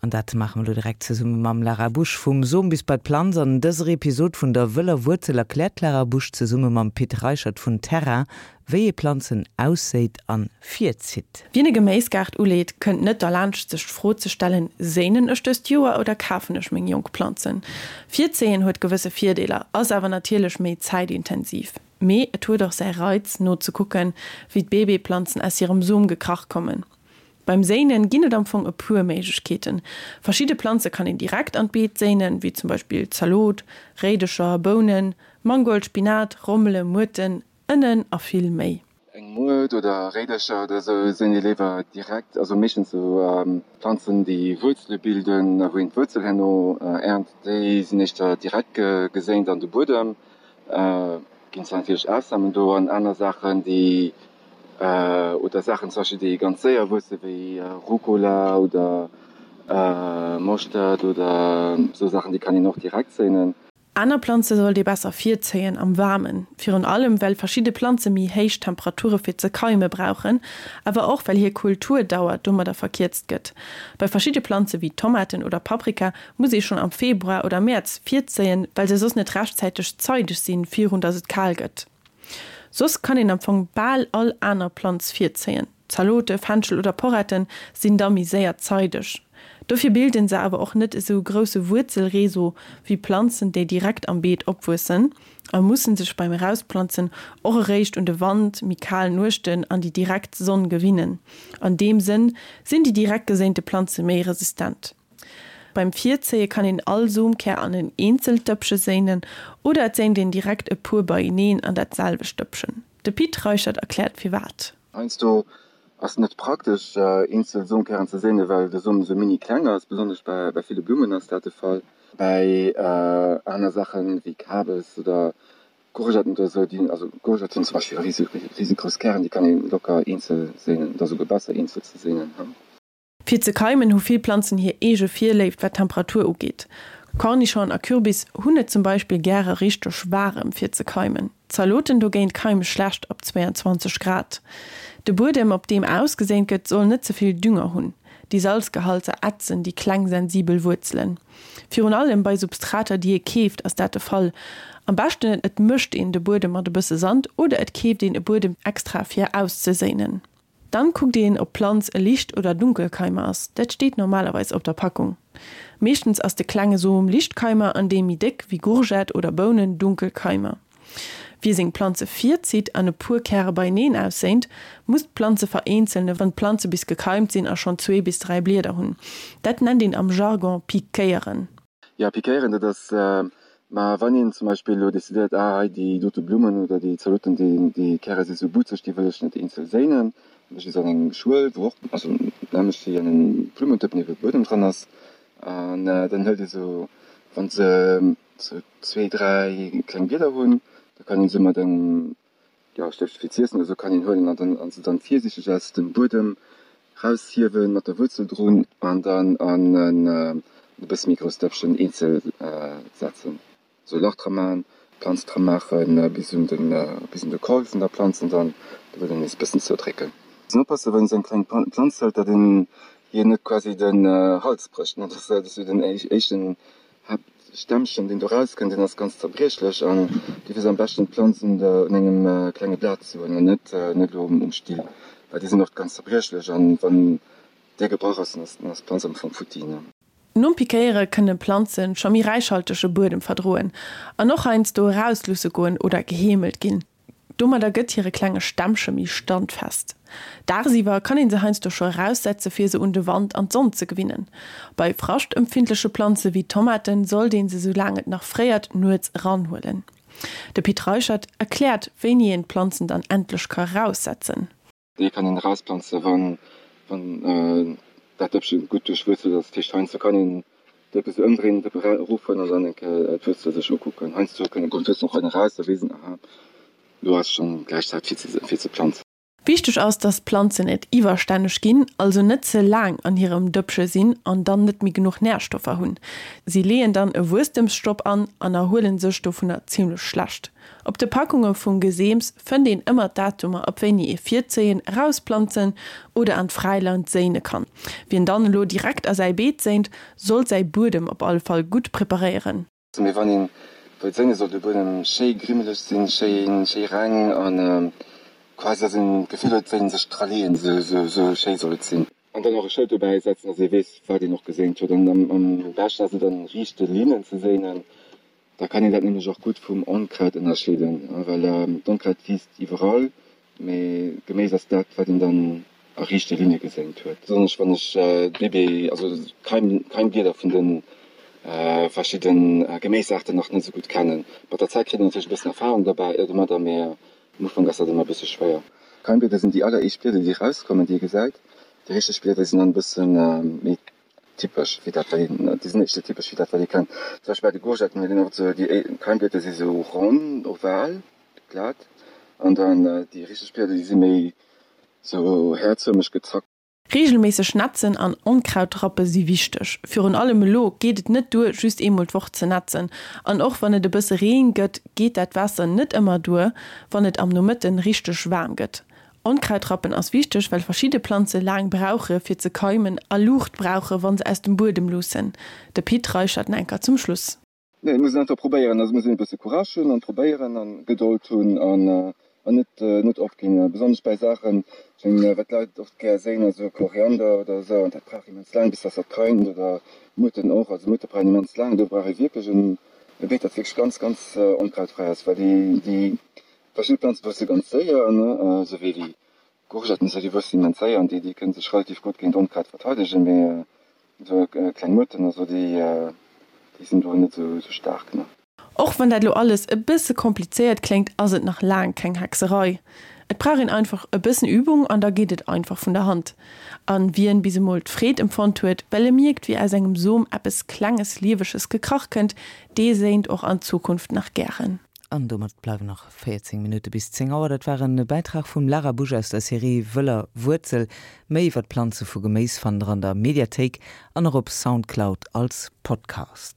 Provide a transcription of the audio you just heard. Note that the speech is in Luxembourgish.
An dat maache mer elo direkt zesumme mam Lara Busch. Vum Som bis bei d'Planz. An dëser Episod vun der wëller Wuerzel erkläert d'Lara Busch zesumme mam Pit Reichert vun Terra, wéi ee Planzen ausséit an virzitt. Wien e Geméisgaart uleet, kënnt net derlaanscht sech d'Fro ze stellen, Séinen ech dëst Joer oder kafen ech meng jonk Planzen? Virzéien huet gewësse Virdeeler, ass awer natierlech méi zäitintensiv. Mee et huet och säi Reiz, nozekucken, wéi d'Bébéplanzen aus hirem Som gekrach kommen. Beim Séinen ginn et am Fong e puer Méiglechkeeten. Verschidde Planze kann een direkt an d'Beet séinen, wéi zum Beispill Zalot, Réidecher, Bounen, Mangold, Spinat, Rommele, Muerten, Ënnen a vill méi. Eng Muert oder Réidercher oder sou séint ee léiwer direkt, also meeschtens sou Planzen déi Wuerzele bilden, wou een d'Wuerzel herno ernt, déi sinn éischter direkt geséint an de Buedem. Ginn zwar natierlech Ausnamen do an aner Saachen déi oder Saachen zum Beispill déi ganz séier wuesse wéi Rucola oder Moschtert oder sou Saachen, déi kann een och direkt séinen. Aner Planze sollt ee besser virzéien am Waarmen, virun allem well verschidde Planze méi héich Temperature fir ze keime brauchen, awer och well hir Kulturdauer domadder verkierzt gëtt. Bei verschidde Planze wéi Tomaten oder Paprika muss ee schonn am Februar oder Mäerz virzéien, well se soss net rechtzäiteg zeideg sinn, virun datt et kal gëtt. Soss kann een am Fong bal all aner Planz virzéien. Zalote, Fenchel oder Poretten sinn da méi séier zeideg. Dofir bilden se awer och net esou grousse Wuerzelreseau wéi Planzen, déi direkt am Beet opwuessen a mussen sech beim Erausplanzen och eréischt un de Wand, méi kal Nuechten an déi direkt Sonn gewinnen. An deem Sënn sinn déi direkt geséinte Planze méi resistent. Beim Virzéie kann een all Somkär an en eenzelt Dëppche séinen oder et séint een direkt e puer beieneen an dat selwecht Dëppchen. De Pit Reichert erkläert firwat. Heiansdo ass et net praktesch eenzel Somkären ze séinen, well de Som esou mini kleng ass. Besonnesch bei ville Blummen ass dat de Fall. Bei aner Saachen wéi Kabes oder Courgetten oder esou, déi, also Courgette hunn zum Beispill risegrouss Kären, déi kann ee locker eenzel séinen. Et ass esouguer besser eenzel ze séinen. Fir ze keimen hu vill Planzen hir eege Virléift wat d'Temperatur ugeet. Cornichon a Kürbis hunn et zum Beispill gäre richteg waarem fir ze keimen. Zaloten dogéint keime schlecht ab 22 Grad. De Buedem op deem ausgeséint gëtt soll net ze vill Dünger hunn. Déi Salzgehalter ätzen déi kleng sensibel Wuerzelen. Virun allem bei Substrater déi ee keeft ass dat de Fall. Am beschten et mëscht een de Buedem mat e bësse Sand oder et keeft een e Buedem extra fir auszeséinen. Dann kuckt een ob d'Planz e Licht oder Dunkelkeimer ass, dat steet normalerweis op der Packung. Meeschtens ass de klenge Som Lichtkeimer an dee méi déck, wéi Gourgette oder Bounen, Dunkelkeimer. Wie seng Planze virzitt an e puer Käre beieneen ausséint, muss d'Planze vereenzelne wann d'Planze bis gekeimt sinn a schonn zwee bis 3 Blieder hunn. Dat nennt een am Jargon pikéieren. Jo, pikéieren, dat ass, ma wann een zum Beispill elo decidéiert, ah hei déi dote Blummen oder déi Zaloten, déi déi Käre si sou butzeg, déi wëll ech net eenzel séinen, da mécht ee se an eng Schuel, wou och, also nämmlecht wéi an engem Blumentëppen ebe Buedem dran ass, an dann hëlt ee sou, wann se sou zwee, dräi kleng Blieder hunn, da kann een se mat engem Jo, Stëft fir z'iessen oder sou kann een huelen an dann an se dann virsiichteg aus dem Buedem raushiewen mat der Wuerzel drun an dann an en e bësse méi grousst Dëppchen eenzel setzen. Sou e Lach dra man, d'Planz dra maachen bis un den bis un de Col vun der Planz an dann de Buedem nees e bëssen zoudrécken. Muss een oppassen wann een sou eng kleng Planz hëlt, datt een hir net quasi den Hals brécht, ne, dat ass sou den éischten Haaptstämmchen, deen do rauskënnt, deen ass ganz zerbriechlech an dofir ass am beschten d'Planz un der un engem klenge Blat ze huelen an net net elo um Still, well déi sinn oft ganz zerbriechlech an wann dee gebrach ass, dann ass dann ass d'Planz am Fong futti, ne. Nom Pikéiere kënne Planze scho méi räichhaltege Buedem verdroen an och heiansdo erausluusse goen oder geheemelt ginn. Domadder gëtt hire klenge Stämmche méi standfest. Dagsiwwer kann een se heiansdo scho eraussetze fir se un de Wand an d'Sonn ze gewinnen. Bei fraschtempfindleche Planze wéi Tomaten sollt een se soulaang et nach fréiert nuets eranhuelen. De Pit Reichert erkläert wéini een d'Planzen dann endlech ka raussetzen. Déi kann een erausplanze wann wann dat Dëppche gutt duerchwuerzelt ass. Dat heescht heiansdo kann een d'Dëppe sou ëmdréinen, d'Dëppe erofhuelen an dann eng Kéier d'Wuerzel sech ukucken. Heiansdo kënnen kommen d'Wuerzelen och hei eraus, da weess een, aha, elo ass schonn gläich Zäit fir ze fir ze planzen. Wichteg ass, dass d'Planzen net iwwerstänneg ginn, also net ze laang an hirem Dëppche sinn an dann net méi genuch Närstoffer hunn. Si leeën dann e Wuesstemsstopp an an erhuelen sech dovunner zimmlech schlecht. Op de Packunge vum Geseems fënnt een ëmmer d'Datumer ab wéini ee virzéien, erausplanzen oder an d'Fräiland séine kann. Wien dann elo direkt a säi Beet séint, sollt säi Buedem op alle Fall gutt preparéieren. Mee wann een wëllt séngen, soll de Buedem schéi grimmeleg sinn, schéi reng an quasi dass een d'Gefill huet, wéi een sech dra leeën, sou schéi soll et sinn. An dann och e Schëld dobäi setzen, dass ee weess, wat een och geséint huet. An am beschten ass et an riichte Linnen ze séinen, da kann een dat nämlech och gutt vum Onkraut ënnerscheeden, well d'Onkraut wiisst iwwerall Mee Geméis ass dat, wat een dann a riichte Linne geséint huet. Besonnesch wann ech d'Bébé, also d'Keimblieder vun de verschidde Geméisaarten nach net esou gutt kennen. Mat der Zäit kritt een natierlech e bëssen Erfarung derbäi domadder, mee am Ufank ass dat ëmmer e bësse schwéier. Keimblieder sinn déi alleréischt Blieder, déi erauskommen, déi ee gesäit. Déi richteg Blieder sinn dann e bësse méi typesch wéi dat, wat een, déi sinn éischter typesch wéi dat, wat ee kennt. Zum Beispill bei de Courgetten huet een och esou, déi Keimblieder si sou ronn, oval. Glat an dann déi richteg Blieder déi si méi sou häerzfërmeg gezackt. Reegelméisseg netzen an Onkrautrappe si wichteg. Virun allem elo geet et net duer, just eemol d'Woch ze netzen. An och wann et e bësse Reen gëtt, geet dat Waasser net ëmmer duer, wann et am Nomëtten richteg waarm gëtt. Onkrautrappen ass wichteg, well verschidde Planze laang brauche fir ze keimen a Luucht brauche wa se aus dem Buedem luussen. De Pit Reichert Nenker zum Schluss. Nee, et muss een einfach probéieren. Also et muss een e bësse Courage hunn an probéieren an Gedold hunn an an net net opginn. Besonnesch bäi Saachen, ech mengen, wat d'Leit oft gär séin, ass esou Koriander oder esou an dat brauch immens laang bis dass dat keimt oder Muerten och. Also Muerte brauchen immens laang. Do brauch ee wierklech en e Beet, dat wierklech ganz ganz onkrautfräi ass, well déi déi verschidde Planze wuesse ganz séier, ne, esou wéi déi Courgetten, esou déi wuessen immens séier an déi déi kënne sech relativ gutt géint Onkraut verteidegen, mee Esou kleng Muerten, also déi déi sinn do net esou staark, ne. Och wann dat lo alles e bësse komplizéiert kléngt, ass et nach laang keng Hexerei. Et brauch een einfach e bëssen Übung an da geet et einfach vun der Hand. An wien bis emol d'Freed empfonnt huet, well e mierkt wéi aus engem Som eppes klenges Lieweges gekrach kënnt, dee séint och an Zukunft nach gären. An domat bleiwen nach 14 Minutte bis 10 Auer. Dat war en Bäitrag vum Lara Busch aus der Serie Wëller Wuerzel. Méi iwwer d'Planze vu Geméis fannt der an der Mediathéik an och op Soundcloud als Podcast.